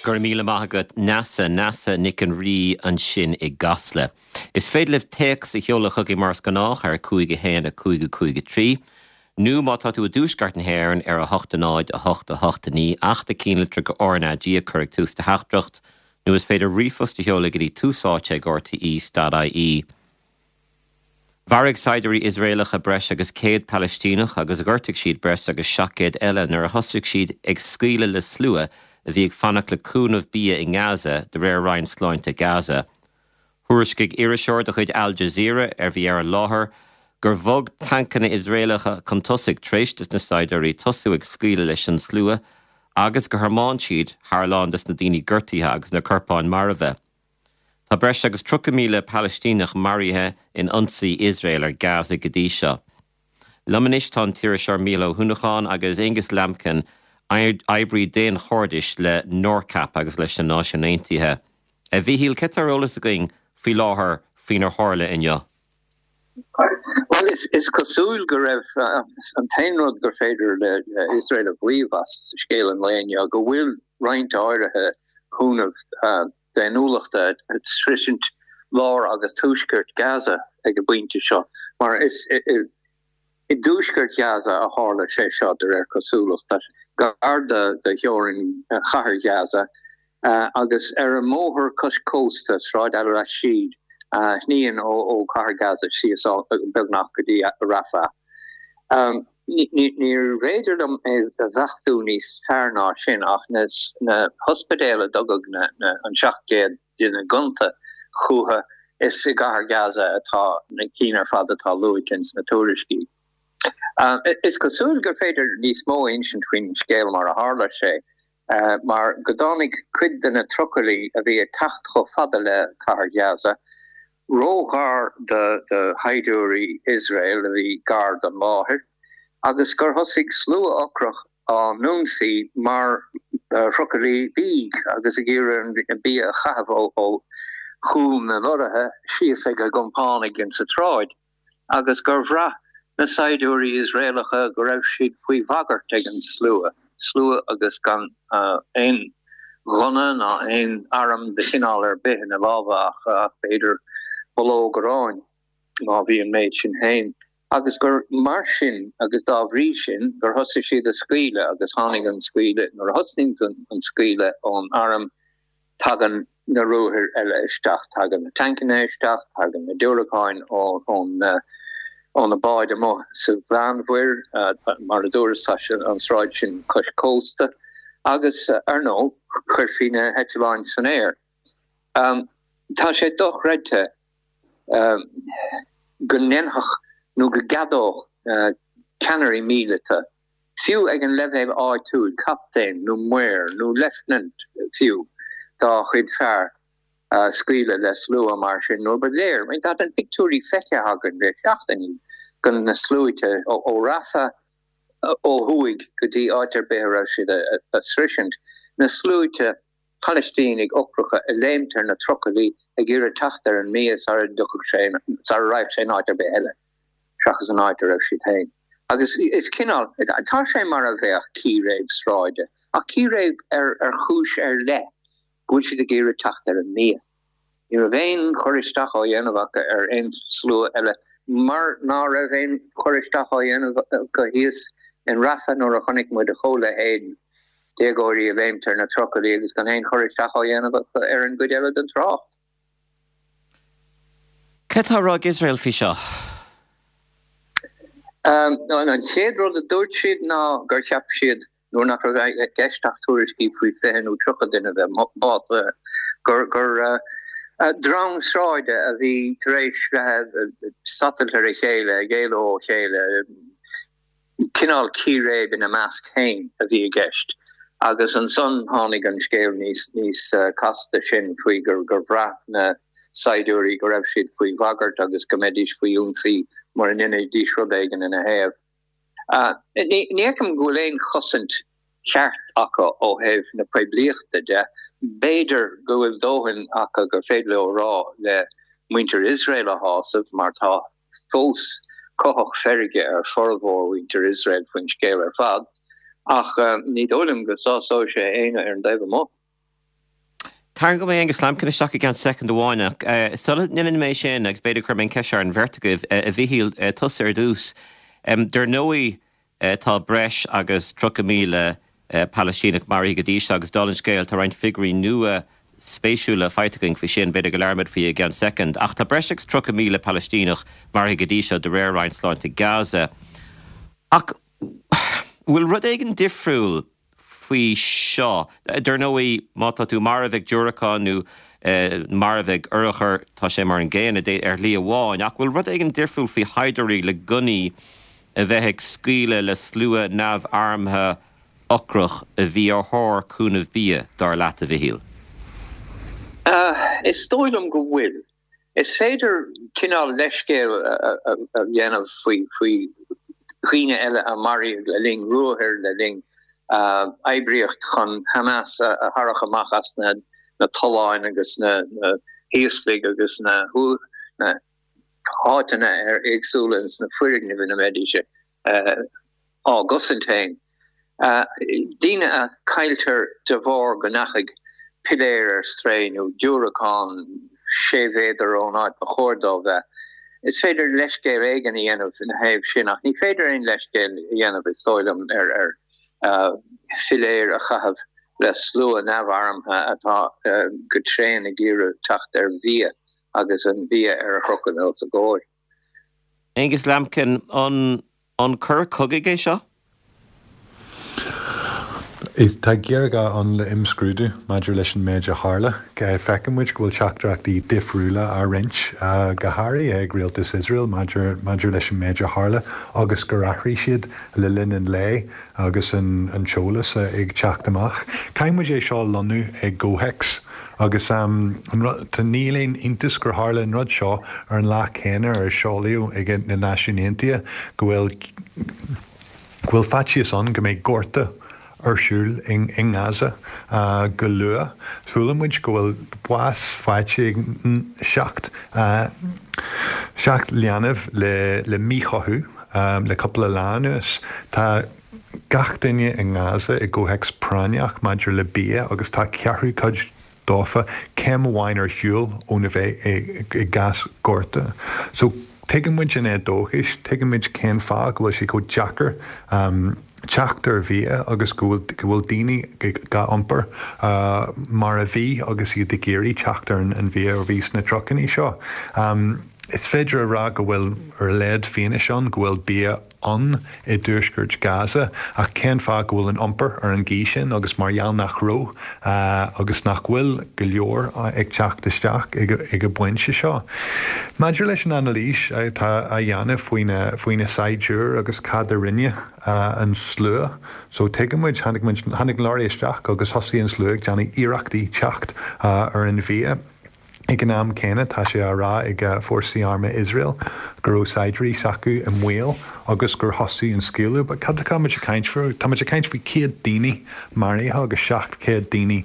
Go raibh míle maith agat Neasa, Neasa Nic an Rí ansin i gCasla. Is féidir libh téacs a sheoladh chugainn mar is gnách ar 5 1 5 5 3, nó má tá tú i dtuaisceart na hÉireann ar 8 0 8 8 9 ach do chinnlitreacha RnaG a chur ag tús do theachtaireacht, nó is féidir ríomhphost a sheoladh go dtí túsáite ag rte.ie. Mharaigh saighdiúirí Iosraelacha breis agus 100 Palaistíneach agus ghortaigh siad breis agus 700 eile nuair a thosaigh siad ag scaoileadh le slua a bhí ag fanacht le cúnamh bia i nGaza, de réir Roinn Sláinte Gaza. Thuairiscigh iriseoir de chuid Al Jazeera, a bhí ar an láthair, gur bhog tancanna Iosraelacha chun tosaigh tar éis dos na saighdiúirí tosú ag scaoileadh leis an slua agus gur thiomáin siad thar a lán des na daoine gortaithe agus na corpáin marbha. Tá breis agus 30,000 Palaistíneach maraithe in ionsaí Iosrael ar Gaza go dtí seo. Liom anois tá an t-iriseoir Mícheál Ó hUanacháin agus Aonghus Lambkin, oibrí daonchairdis le NORCAP agus leis na Náisiúin Aontaithe. A Mhíchíl, céard tá ar eolas againn faoi láthair faoinar tharla inniu? Bhuel, is cosúil go raibh an t-aon rud gur féidir le Iosrael a mhaíomh as scéal an lae inniu go bhfuil roinnt áirithe cúnamh daonnúlachta ag sroisint lár agus tuaisceart Gaza ag an bpointe seo, mar is i dtuaisceart Ghaza a tharla sé seo de réir cosúlachta, gar do theorainn chathair Ghaza agus ar an mbóthar cois cósta, Sráid Al-Rashid, a shníonn ó chathair Gaza síos beagnach go dtí Rafah. Níorbh fhéidir liom é a bheachtú níos fearr ná sin ach na hospidéil a dtugadh an 700 duine gonta chucu, is i gcathair Gaza atá na cinn ar fad atá luaite ins na tuairiscí. Is cosúil gur féidir níos mó a insint faoin scéal mar a tharla sé, mar go dtáinig cuid de na trucailí a bhí ag teacht chomh fada le cathair Ghaza róghar do shaighdiúirí Iosrael a bhí gar don láthair agus gur thosaigh slua ocrach á n-ionsaí mar thrucailí bídh agus ag iarraidh an bia a chaitheamh ó chúl na lorraithe síos ag a gcompánaigh insa tsráid. agus gur bhraith na saighdiúirí Iosraelacha go raibh siad faoi bhagairt ag an slua, slua agus gan aon ghunna ná aon arm de chineál ar bith ina lámha ach b'fhéidir bulóg aráin, má bhí an méid sin féin, agus gur mar sin agus dá bhrí sin gur thosaigh siad ag scaoileadh agus tháinig an scaoileadh, nuair a thosnaíonn an scaoileadh ón arm, Tagann na ruathair eile isteach, tagann na tancanna isteach, tagann na diúracáin ó na báid amuigh sa Mheánmhuir, mar a dúras, tá an sráid sin cois cósta, agus ar ndóigh, chuirfí na heitleáin san aer. Tá sé dochreidte go ndéanfadh nó go gceadódh ceannairí míleata fiú ag an leibhéal áitiúil, captaen nó maor nó leifteanant fiú, dá chuid fear scaoileadh le slua mar sin nuair ba léir, tá na pictiúirí feicthe againn le seachtainí, de na sluaite ó Rafah ó thuaidh go dtí áit ar bith a raibh siad ag sroisint, na sluaite Palaistínigh ocracha ag léimt ar na trucailí ag iarraidh teacht ar an mbia sara dtiocfadh sé, sara raghadh sé in áit ar bith eile seachas an áit a raibh siad féin. Agus is cineál, tá sé mar a bheadh círéib sráide, ach círéib ar ar chúis ar leith, go bhfuil siad ag iarraidh teacht ar an mbia. Ní raibh aon chur isteach á dhéanamh acu ar aon slua eile, mar ná raibh aon chur isteach á dhéanamh acu thíos in Rafah nuair a chonaic muid a chomhleithéid, déagóirí ag léimt ar na trucailí agus gan aon chur isteach á dhéanamh acu ar an gcuid eile den trácht. Cad tá á rá ag Iosrael faoi seo? An chéad rud a dúirt siad ná gur cheap siad nuair nach raibh i gceist ach tuairiscí faoi 20 nó 30 duine a bheith básaithe, gur dream sráide a bhí tar éis bheith ag satailt ar a chéile, ag éalú ó chéile, cineál círéib ina measc féin a bhí i gceist. Agus ansan tháinig an scéal níos níos casta sin faoi gur bhraith na saighdiúirí go raibh siad faoi bhagairt agus go mbeidís faoi ionsaí mura ndéanfaidís rud éigin ina thaobh. Ní fheicim go bhfuil aon chosaint cheart acu ó thaobh na poiblíochta de. B'fhéidir go bhfuil dóthain acu gur féidir leo a rá le muintir Iosrael a shásamh, mar tá fós cuthach feirge ar formhór mhuintir Iosrael faoin scéal ar fad, ach ní dóigh liom go sásóidh sé éinne ar an dtaobh amuigh. Tarraingeoidh mé Angus Lambkin isteach i gceann soicind amháin ach sula ndéanann mé sin, agus b'fhéidir cuirfidh mé an cheist seo ar an bheirt agaibh, a Mhichíl, tusa ar dtús. Dar ndóigh tá breis agus 30,000 Palaistíneach maraithe go dtí seo agus dála an scéil tá roinnt figiúirí nua spéisiúla faighte againn faoi sin, b'fhéidir go labhróimid faoi i gceann soicind. Ach tá breis agus 30,000 Palaistíneach maraithe go dtí seo de réir Roinn Sláinte Gaza. Ach bhfuil rud éigin difriúil faoi seo. Dar ndóigh, má tá tú marbh ag diúracán nó marbh ag urchar, tá sé mar an gcéanna ar shlí amháin. Ach bhfuil rud éigin difriúil faoi shaighdiúirí le gunnaí a bheith ag scaoileadh le slua neamharmtha ocrach a bhí ar thóir cúnamh bia, dar leat, a Mhichíl? Is dóigh liom go bhfuil. Is féidir cineál leithscéal a dhéanamh faoi dhaoine eile a maraíodh le linn ruathair, le linn oibríocht chun Hamas a tharrac amach as na tolláin agus na híoslaigh agus na háiteanna éagsúla ins na foirgnimh ina mbeidís á gcosaint féin. Daoine a cailltear de bharr go ndeachaigh piléar ar strae nó diúracán sé mhéadar ón áit ba chóir dó bheith. Is féidir leithscéal éigin a dhéanamh ina thaobh sin ach ní féidir aon leithscéal a dhéanamh, is dóigh liom, ar philéir a chaitheamh le slua neamharmtha atá go tréan ag iarraidh teacht ar bhia agus an bia ar a chrochadh os a gcomhair. Angus Lambkin, an An coir cogaidh é seo? Tá géarghá ann le imscrúdú maidir leis an méid a tharla. Feiceann muid go bhfuil teachtaireachtaí difriúla á roinnt, go háirithe ag rialtas Iosrael maidir maidir leis an méid a tharla agus gur athraigh siad le linn an lae agus an t-eolas ag teacht amach. Caithfidh muid é seo a lonnú i gcomhthéacs. Agus an rud, níl aon iontas gur tharla an rud seo ar an lá céanna ar seolaíodh ag na Náisiúin Aontaithe go bhfuil go bhfuil faitíos ann go mbeidh gorta ar siúl i nGaza go luath. Chuala muid go bhfuil bás faighte ag 7 7 leanbh le le míchothú le cúpla lá anuas. Tá. gach duine i nGaza i gcomhthéacs práinneach maidir le bia agus tá ceathrú cuid dófa céim amháin ar shiúl óna bheith i gcás gorta. So tuigeann muid an éadóchas, tuigeann muid cén fáth go bhfuil sé chomh deacair teacht ar bhia agus go bhfuil go bhfuil daoine á n-iompar mar a bhí agus iad ag iarraidh teacht ar an bhia a bhí sna trucannaí seo. Is féidir a rá go bhfuil ar a laghad fianaise ann go bhfuil bia ann i dtuaisceart Gaza ach cén fáth go bhfuil an iompar ar an gcaoi sin agus mar gheall nach raibh agus nach bhfuil go leor ag teacht isteach ag an bpointe seo. Maidir leis an anailís atá á dhéanamh faoi na saighdiúir agus cad a rinne an slua so tuigeann muid, tháinig muid, tháinig an leoraí isteach agus thosaigh an slua ag déanamh iarrachtaí teacht ar an bhia. Ag an am céanna, tá sé á rá ag fórsaí armtha Iosrael go raibh saighdiúirí s'acu i mbaol agus gur thosaigh an scaoileadh. But cad atá muid ag caint faoi? Tá muid ag caint faoi 100 daoine maraithe agus 700 daoine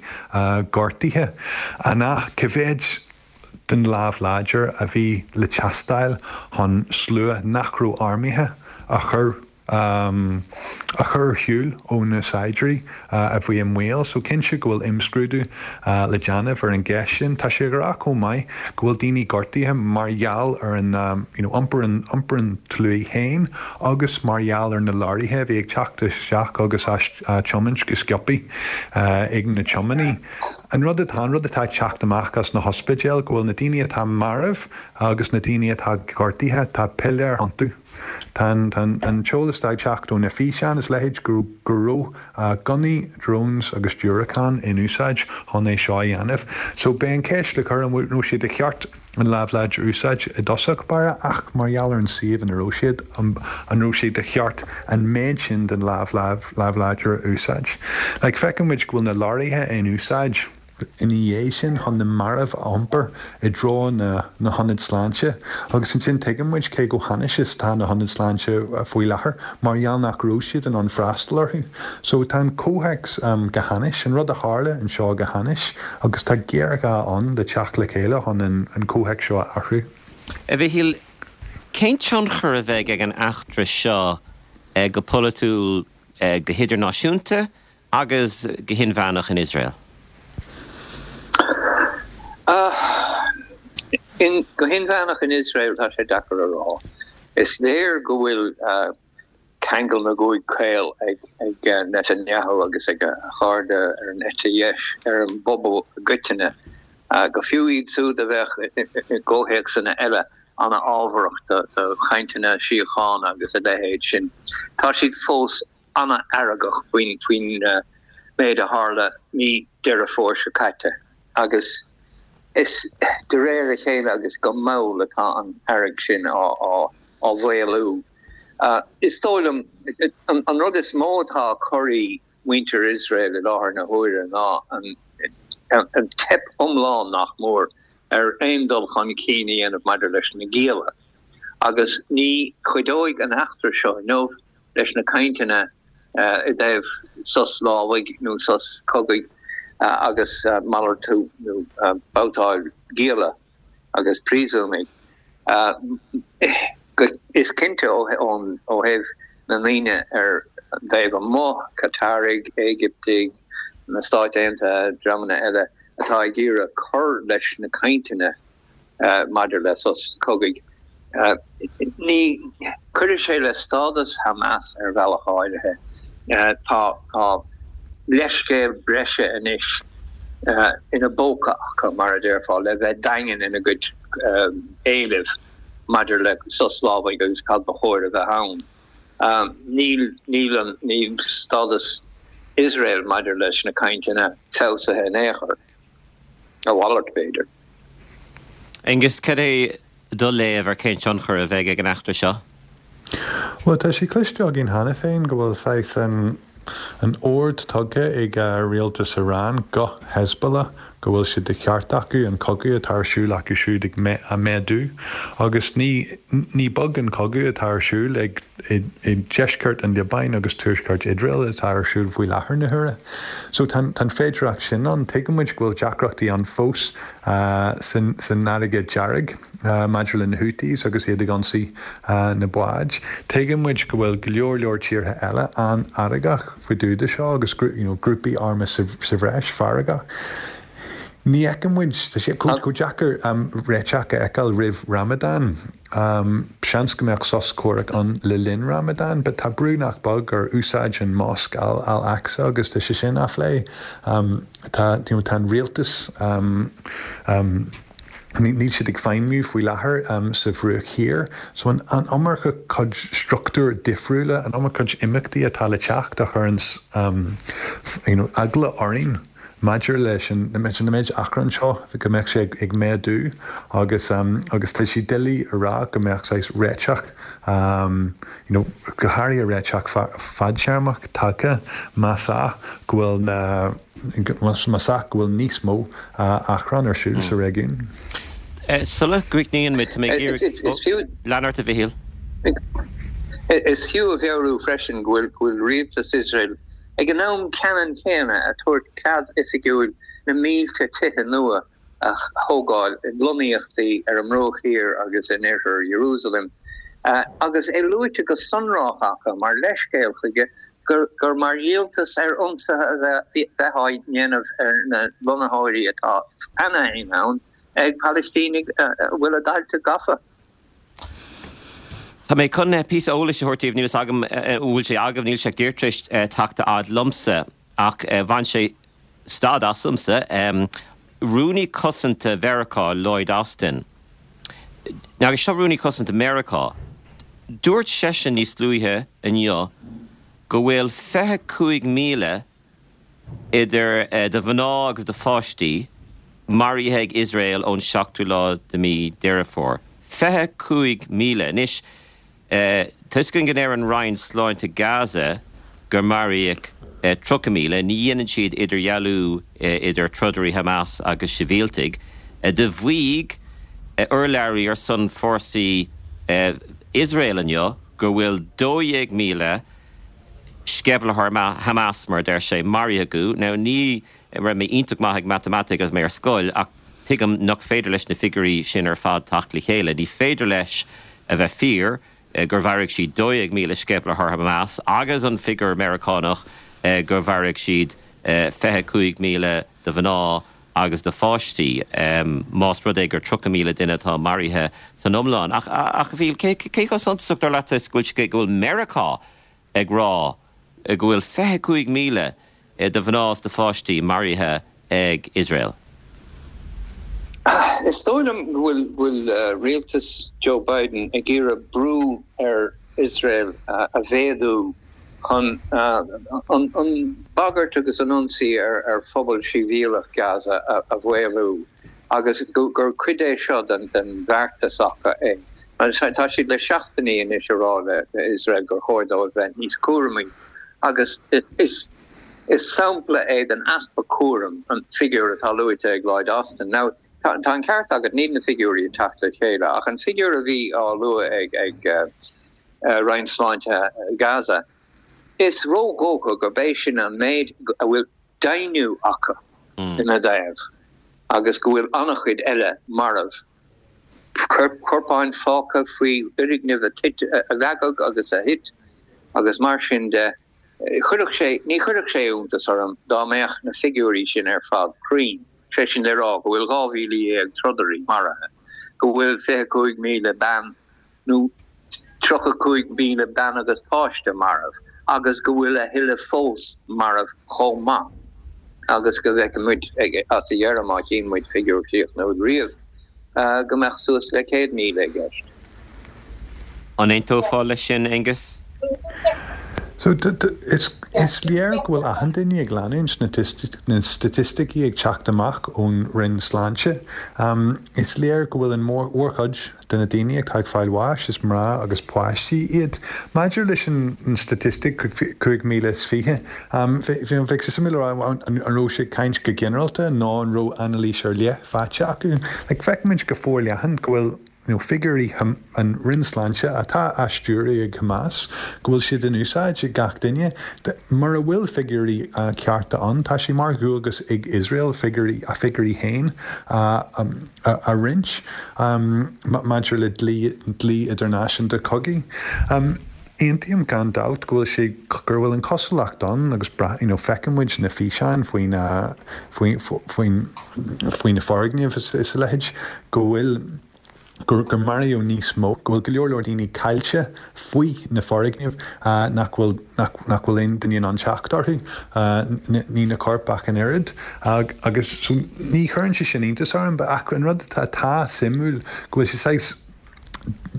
gortaithe. An ea? Cá mhéad den lámh láidir a bhí le teastáil chun slua nach raibh armtha a chur a chur ar shiúl ó na saighdiúirí a bhí i mbaol. So cinnte go bhfuil imscrúdú le déanamh ar an gceist sin. Tá sé ag rá chomh maith go bhfuil daoine gortaithe mar gheall ar an you know iompar an iompar an tslua féin agus mar gheall ar na leoraithe a bhí ag teacht isteach agus á tiomáint go sciobthaí ag na tiománaí. An rud atá an rud atá ag teacht amach as na hospidéil go bhfuil na daoine atá marbh agus na daoine atá gortaithe, tá piléir iontu. Tá an t-eolas atá ag teacht ó na físeáin is leithéid go raibh gunnaí, drones agus diúracáin in úsáid chun é seo a dhéanamh. So beidh an ceist le cur an raibh sé de cheart an lámh láidir a úsáid i dtosach báire ach mar gheall ar an suíomh ina raibh siad, an raibh sé de cheart an méid sin den lámh láidir a úsáid? Like feiceann muid go bhfuil na leoraithe in úsáid. ina dhiaidh sin chun na mairbh a iompar i dtreo na hionad sláinte agus ansin tuigeann muid cé chomh hainnis is atá na hionaid sláinte faoi láthair mar gheall nach raibh siad in ann freastal orthu. So tá an comhthéacs go hainnis, an rud a tharla anseo go hainnis agus tá géarghá ann le teacht le chéile chun an comhthéacs seo a athrú. A Mhichíl, cén tionchar a bheidh ag an eachtra seo go polaitiúil, go hidirnáisiúnta agus go hinmheánach in Iosrael? Go hinmheánach in Iosrael tá sé deacair a rá. Is léir go bhfuil ceangal na gcúig caol ag Netanyahu agus ag a chairde ar an eite dheis ar an bpobal i gcoitinne, go fiú iad siúd a bheadh i gcomhthéacsanna eile an-fhábharach do chainteanna síochána agus a leithéid sin. Tá siad fós an-fheargach faoin méid a tharla mí Deireadh Fómhair seo caite agus is de réir a chéile agus go mall atá an fhearg sin á mhaolú. Is dóigh liom, an rud is mó atá ag corraí muintir Iosrael i láthair na huaire ná an teip iomlán, nach mór, ar aon dul chun cinn a dhéanamh maidir leis na gialla. Agus ní chuideoidh an eachtra seo inniu leis na cainteanna i dtaobh sos lámhaigh nó sos cogaidh agus malartú nó babhtáil gialla agus príosúnaigh. Is cinnte ó thaobh na ndaoine ar an dtaobh amuigh, Cataraigh, Éigiptigh, na Stáit Aontaithe, dreamanna eile atá ag iarraidh cur leis na cainteanna maidir le sos cogaidh, ní chuirfidh sé le stádas Hamas ar bhealach áirithe. Tá leithscéal breise anois ina bpóca acu, mar a déarfá, le bheith daingean ina gcuid éilimh maidir le sos lámhaigh agus cad ba chóir a bheith ann. Níl, níl an, níl stádas Iosrael maidir leis na cainteanna feabhsaithe in aon chor. A mhalairt, b'fhéidir. Aengus, cad é do léamh ar cén tionchar a bheidh ag an eachtra seo? Bhuel, tá sé cloiste againn cheana féin go bhfuil saghas an an ord tugtha ag rialtas Iran go Hezbollah go bhfuil sé de cheart acu an cogadh atá ar siúl acu siúd ag a méadú agus ní ní beag an cogadh atá ar siúl ag i deisceart an Liobáin agus tuaisceart Iosrael atá ar siúl faoi láthair na huaire. So tá an féidireacht sin ann. Tuigeann muid go bhfuil deacrachtaí ann fós san Fharraige Dearg maidir le na Houthis agus iad ag ionsaí na báid. Tuigeann muid go bhfuil go leor leor tíortha eile an-fheargach faoi dtaobh de seo agus you know grúpaí armtha sa bhreis feargach. Ní fheiceann muid, tá sé chomh deacair réiteach a fheiceáil roimh Ramadan. Seans go mbeadh sos comhraic ann le linn Ramadan, but tá brú nach beag ar úsáid an mosc Al Aqsa agus tá sé sin á phlé. Tá, you know, tá an rialtas, níl siad ag feidhmiú faoi láthair sa Bhruach Thiar. So an iomarca cuid struchtúir difriúla, an iomarca cuid imeachtaí atá le teacht a chuireann, you know, eagla orainn. Maidir leis an méid achrann seo, go mbeadh sé ag méadú agus agus tá sé doiligh a rá go mbeadh saghas réiteach, you know, go háirithe réiteach fadtéarmach tagtha más ea go bhfuil na, más ea go bhfuil níos mó achrann ar siúl sa réigiún. Sula gcríochnaíonn muid, tá mé ag iarraidh, lean ort a Mhichíl. Is fiú a mheabhrú freisin go bhfuil rialtas Iosrael Ag an am ceannann céanna ag tabhairt cead oifigiúil na mílte tithe nua a thógáil i lonnaíochtaí ar an mBruach Thiar agus in oirthear Iarúsailéim, agus é luaite go sonrach acu mar leithscéal chuige gur mar dhíoltas ar ionsaithe a bheith á ndéanamh ar na lonnaitheoirí atá cheana féin ann ag Palaistínigh a bhfuil a dtailte gafa. Tá mé chun píosa eolais a thabhairt daoibh, níl fhios agam an bhfuil sé agaibh, níl sé ach díreach tar éis teacht a fhad liomsa, ach bhain sé stad asamsa. Rúnaí Cosanta Mheiriceá, Lloyd Austin, agus seo Rúnaí Cosanta Meiriceá, dúirt seisean níos luaithe inniu go bhfuil 25,000 idir de mhná agus de pháistí, maraithe ag Iosrael ón seachtú lá de mí Deireadh Fómhair. 25,000. Anois, tá fhios againn go ndeir an Roinn Sláinte Gaza gur maraíodh 30,000. Ní dhéanann siad idirdhealú idir trodairí Hamas agus sibhialtaigh. Do mhaígh urlabhraí ar son fórsaí Iosrael inniu go bhfuil 12,000 sceimhlitheoir Hamas, mar a deir sé, maraithe acu. Now, ní raibh mé iontach maith ag matamaitic agus mé ar scoil, ach tuigim nach féidir leis na figiúirí sin ar fad teacht le chéile. Ní féidir leis a bheith fíor gur mharaigh siad 12,000 sceimhlitheoir Hamas agus an figiúr Meiriceánach gur mharaigh siad 25,000 de mhná. agus do pháistí, más rud é gur 30,000 duine atá maraithe san iomlán. Ach, a Mhíchíl, cé chomh suntasach dar leatsa is go bhfuil go bhfuil Meiriceá ag rá go bhfuil 25,000 de mhná is de pháistí maraithe ag Iosrael? Is dóigh liom go bhfuil rialtas Joe Biden ag iarraidh brú ar Iosrael a mhéadú chun an bhagairt agus an ionsaí ar phobal sibhialtach Gaza a mhaolú agus gur cuid é seo den bheartas acu é. Tá siad le seachtainí anois ag rá le Iosrael gur chóir dóibh bheith níos cúramaí agus is sampla é den easpa cúraim an figiúr atá luaite ag Lloyd Austin. Now, tá an ceart agat, níl na figiúirí ag teacht le chéile ach an figiúr a bhí á lua ag Roinn Sláinte Gaza. Is ródhócha gurb é sin an méid a bhfuil deimhniú acu ina dtaobh agus go bhfuil an-chuid eile marbh, corpáin fágtha faoi fhoirgnimh a leagadh agus a thit agus mar sin de. Chuirfeadh sé, ní chuirfeadh sé iontas orm dá mbeadh na figiúirí sin ar fad cruinn, sé sin le rá go bhfuil 12,000 trodairí maraithe, go bhfuil 25,000 bean nó 35,000 bean agus páiste marbh agus go bhfuil a thuilleadh fós marbh chomh maith agus go bhfeicfidh muid as a dheireadh, má chíonn muid figiúr críochnúil riamh, go mbeadh suas le 100,000 i gceist. An aontófá leis sin, Aengus? So, is léir go bhfuil achan duine ag leanúint na staitisticí ag teacht amach ón Roinn Sláinte. Is léir go bhfuil an mhórchuid de na daoine atá ag fáil bháis, is mná agus páistí iad. Maidir leis an staitistic 5,020, bheadh sé suimiúil a rá an raibh sé ag caint go ginearálta nó an raibh anailís ar leith faighte acu. Like, feicimid go forleathan go bhfuil nó figiúirí an Roinn Sláinte atá á stiúradh ag Hamas, go bhfuil siad in úsáid ag gach duine. Mura bhfuil figiúirí cearta ann, tá sé mar dhualgas ag Iosrael figiúirí, a figiúirí féin a roinnt maidir le dlí, dlí idirnáisiúnta cogaidh. Aontaím gan dabht go bhfuil sé, gur bhfuil an chosúlacht ann agus you know feiceann muid na físeáin faoi na, faoi, faoin, faoi na foirgnimh is a leithéid, go bhfuil, gur, gur maraíodh níos mó, go bhfuil go leor leor daoine caillte faoi na foirgnimh nach bhfuil, nach, nach bhfuil aon duine in ann teacht orthu, ní na coirp ach an oiread. Agus so ní chuireann sé sin iontas orm, ach an rud atá, atá suimiúil go bhfuil sé saghas,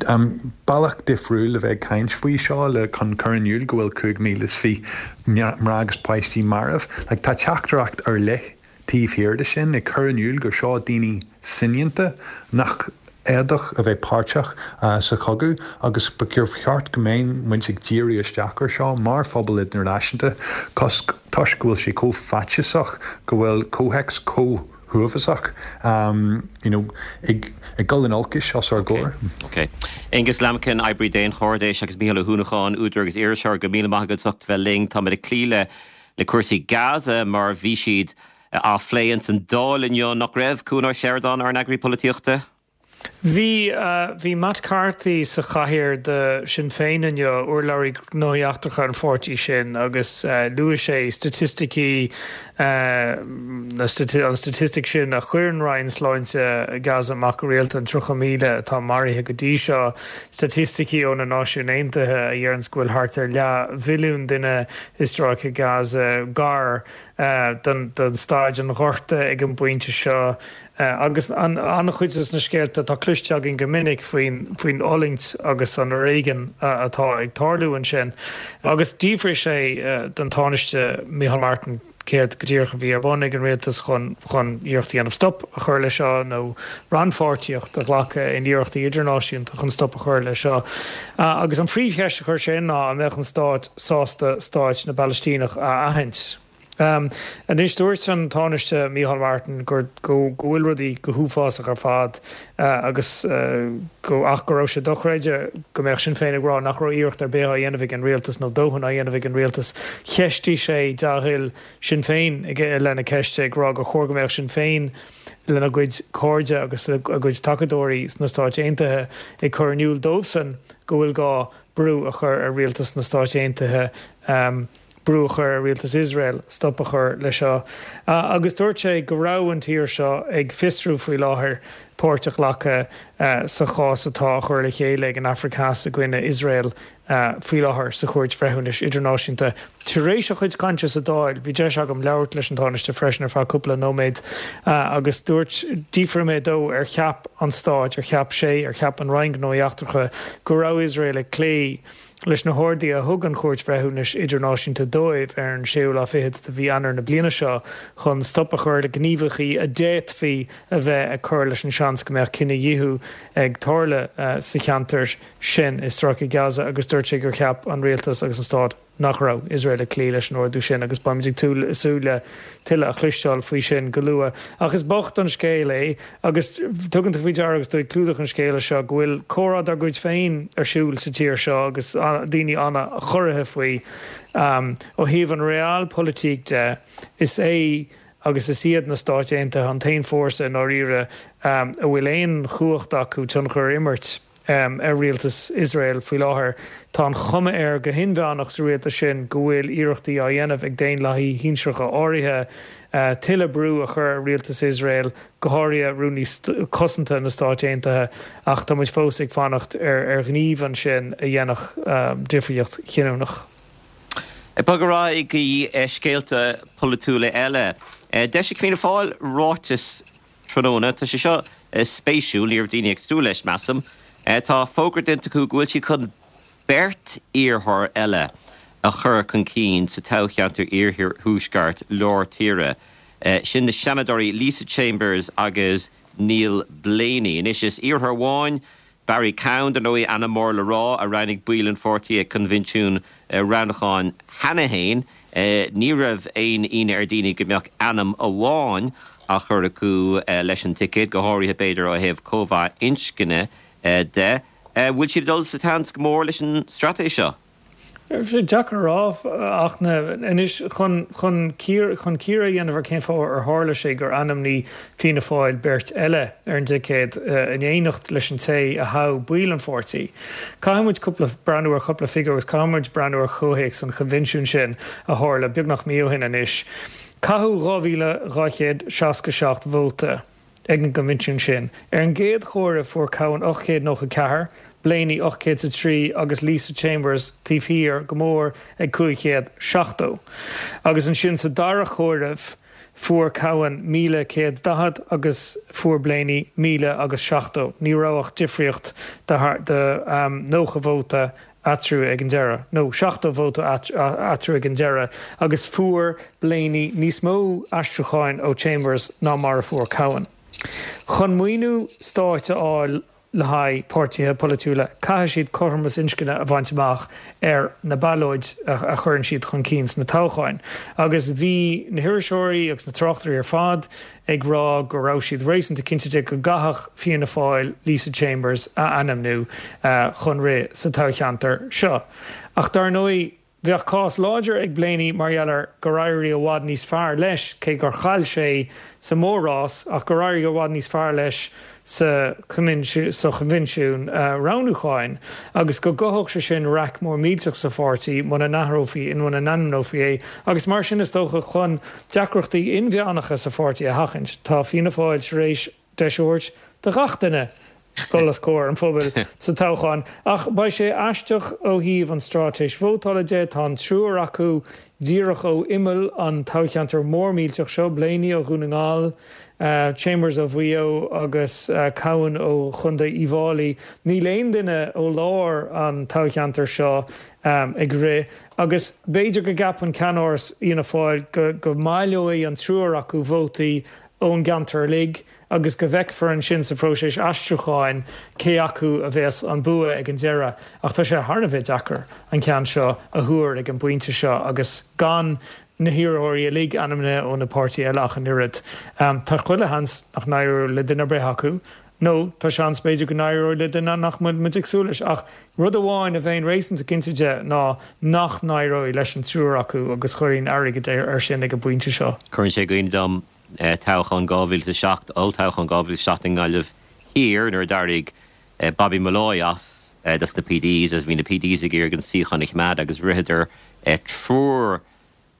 Bealach difriúil le bheith ag caint faoi seo le chun cur in iúl go bhfuil 5,020 mná agus páistí marbh. Like tá teachtaireacht ar leith taobh thiar de sin ag cur in iúl gur seo daoine soineanta nach fhéadfadh a bheith páirteach sa chogadh agus ba cheart go mbeadh muid ag díriú isteach ar seo mar phobal idirnáisiúnta toisc go bhfuil sé chomh faitíosach go bhfuil comhthéacs chomh huafásach you know ag dul in olcais os ár gcomhair. Ok. Aengus Lambkin, oibrí daonchairdis, agus Mícheál Ó hUanacháin, údar agus iriseoir, go míle maith agat as ucht bheith linn. Táimid ag cloí le le cúrsaí Gaza mar bhí siad á phlé ins an Dáil inniu, nach raibh, Cuan Ó Seireadáin, ár n-eagraí polaitíochta? Bhí, bhí Matt Carthy sa chathaoir do Sinn Féin inniu, urlabhraí gnóthaí eachtracha an pháirtí sin, agus luaigh sé staitisticí, an staitistic sin a chuireann Roinn Sláinte Gaza amach go rialta, an 30,000 atá maraithe go dtí seo, staitisticí ó na Náisiúin Aontaithe a dheireanns go bhfuil thart ar leathmhilliún duine i Stráice Gaza, gar don staid an ghorta ag an bpointe seo. Agus an-chuid de na scéalta atá cloiste againn go minic faoin fhulaingt agus an fhoréigean atá ag tarlú ansin. Agus d'fhiafraigh sé den Tánaiste Micheál Martin céard go díreach a bhí ar bun ag an rialtas chun chun iarracht a dhéanamh stop a chur leis seo nó rannpháirtíocht a ghlacadh in iarrachtaí idirnáisiúnta chun stop a chur leis seo. Agus an phríomhcheist a chuir sé ná an mbeadh an stát sásta stáit na bPalaistíneach a aithint. Anois, dúirt an Tánaiste Micheál Martin gur go bhfuil rudaí go huafásach ar fad agus go ach go raibh sé dochreidte go mbeadh Sinn Féin ag rá nach raibh iarracht ar bith á dhéanamh ag an rialtas nó dóthain á dhéanamh ag an rialtas. Cheistigh sé dea-thoil Sinn Féin i leith na ceiste ag rá gur chóir go mbeadh Sinn Féin lena gcuid cairde agus a gcuid tacadóirí sna Stáit Aontaithe ag cur in iúl dóibhsan go bhfuil gá brú a chur ar rialtas na Stáit Aontaithe. brú a chur ar rialtas Iosrael stop a chur leis seo. Agus dúirt sé go raibh an tír seo ag fiosrú faoi láthair páirt a ghlacadh sa chás atá á chur le chéile ag an Afraic Theas i gcoinne Iosrael faoi láthair sa Chúirt Bhreithiúnais Idirnáisiúnta. Tar éis a chuid cainte sa Dáil, bhí deis agam labhairt leis an Tánaiste freisin ar feadh cúpla nóiméad agus dúirt, d'fhiafraigh mé dó ar cheap an Stát, ar cheap sé, ar cheap an Roinn Gnóthaí Eachtracha go raibh Iosrael ag cloí leis na horduithe a thug an Chúirt Bhreithiúnais Idirnáisiúnta dóibh ar an séú lá fichead de mhí Eanáir na bliana seo chun stop a chur le gníomhaíochtaí a d'fhéadfaí a bheith ag cur leis an seans go mbeadh cinedhíothú ag tarlú sa cheantar sin i Stráice Gaza agus dúirt sé gur cheap an rialtas agus an stát nach raibh Iosrael ag cloí leis an ordú sin agus beimid ag súil le tuilleadh a chloisteáil faoi sin go luath. Ach is bocht an scéal é agus tugann tú faoi deara agus tú ag clúdach an scéala seo go bhfuil comhrá dár gcuid féin ar siúl sa tír seo agus daoine an-chorraithe faoi. Ó thaobh an realpolitik de, is é agus is iad na Stáit Aontaithe an t-aon fórsa i ndáiríre a bhfuil aon chumhacht acu tionchar a imirt ar rialtas Iosrael faoi láthair. Tá an chuma air go hinmheánach sa rialtas sin go bhfuil iarrachtaí á dhéanamh ag daonlathaithe shinsearacha áirithe tuilleadh brú a chur ar rialtas Iosrael, go háirithe Rúnaí Cosanta na Stáit Aontaithe, ach tá muid fós ag fanacht ar ghníomh ansin a dhéanfadh difríocht chinniúnach. Ag bogadh ar aghaidh go dtí scéalta polaitiúla eile. D'eisigh Fianna Fáil ráiteas tráthnóna. Tá sé seo spéisiúil, ní raibh daoine ag súil leis, measaim. Tá fógra déanta acu go bhfuil siad chun beirt iarrthóir eile a chur chun cinn sa toghcheantar Iarthuaisceart Lár Tíre. Sin na Seanadóirí Lisa Chambers agus Neil Blaney. Anois is iarrthóir amháin Barry Cowen, dar ndóigh, ainm mór le rá, a roghnaigh baill an pháirtí ag coinbhinsiún roghnúcháin cheana féin. Ní raibh aon ionadh ar dhaoine go mbeadh ainm amháin á chur acu leis an ticéad, go háirithe, b'fhéidir, ó thaobh cóimheá inscne de. Bhfuil siad ag dul sa tseans go mór leis an straitéis seo? Tá sé deacair a rá ach anois chun chun chun cíoradh a dhéanamh ar cén fáth ar tharla sé gur ainmnigh Fianna Fáil beirt eile ar an dticéad in éineacht leis an té a thogh baill an pháirtí. Caithfidh muid cúpla breathnú ar chúpla figiúr agus caithfidh muid breathnú ar chomhthéacs an choinbhinsiúin sin a tharla beagnach mí ó shin anois. Caitheadh 2,267 vóta. ag an gcoinbhinsiún sin. Ar an gcéad chomhaireamh fuair Cowen 894, Blaney 803 agus Lisa Chambers taobh thiar go mór ag 570. Agus ansin sa dara chomhaireamh fuair Cowen 1,140 agus fuair Blaney 1,000 agus 70. Ní raibh ach difríocht de 90 vóta eatarthu ag an deireadh, nó 70 vóta eatarthu ag an deireadh, agus fuair Blaney níos mó aistriúcháin ó Chambers ná mar a fuair Cowen. Chun maoiniú stáit a fháil le haghaidh páirtithe polaitiúla, caithfidh siad cothromas inscne a bhaint amach ar na ballóid a chuireann siad chun cinn sna toghcháin. Agus bhí na hiriseoirí agus na tráchtairí ar fad ag rá go raibh siad réasúnta cinnte de go gcaithfeadh Fianna Fáil Lisa Chambers a ainmniú chun rith sa toghcheantar seo. Ach dar ndóigh, bheadh cás láidir ag Blaney mar gheall ar gur éirigh i bhfad níos fearr leis, cé gur chaill sé sa mhór-rás, ach gur éirigh i bhfad níos fearr leis sa choinbhinsiún roghnúcháin agus go gcothódh sé sin raic mór millteach sa pháirtí muna n-athrófaí, muna n-ainmneofaí é agus mar sin is dócha chun deacrachtaí inmheánacha sa pháirtí a sheachaint tá Fianna Fáil tar éis deis a thabhairt do ghach duine dul os comhair an phobail sa toghchán. Ach beidh sé aisteach ó thaobh an straitéis vótála de, tá an triúr acu díreach ó imeall an toghcheantair mór millteach seo, Blaney ó Dhún na nGall, Chambers ó Mhaigh Eo agus Cowen ó Chontae Uíbh Fháilí. Níl aon duine ó lár an toghcheantair seo ag rith agus b'fhéidir go gceapann ceannáras Fhianna Fáil go mbaileoidh an triúr acu vótaí ón gceantar uilig agus go bhfeicfear ansin sa phróiseas aistriúcháin cé acu a bheas an bua ag an deireadh. Ach tá sé thar a bheith deacair an ceann seo a thuar ag an bpointe seo agus gan na hiarrthóirí uilig ainmnithe ó na páirtithe eile ach an oiread. Tá chuile sheans nach n-éireoidh le duine ar bith acu, nó tá seans b'fhéidir go n-éireoidh le duine nach bhfuil muid ag súil leis. Ach rud amháin a bheinn réasúnta cinnte de ná nach n-éireoidh leis an triúr acu agus chuirfinn airgead air sin ag an bpointe seo. Cuireann sé i gcuimhne dom toghchán 2007, olltoghchán 2007 i nGaillimh Thiar nuair a d'éirigh Bobby Molloy as dos na PDs agus bhí na PDs ag iarraidh an suíochán a choimeád agus ritheadar triúr.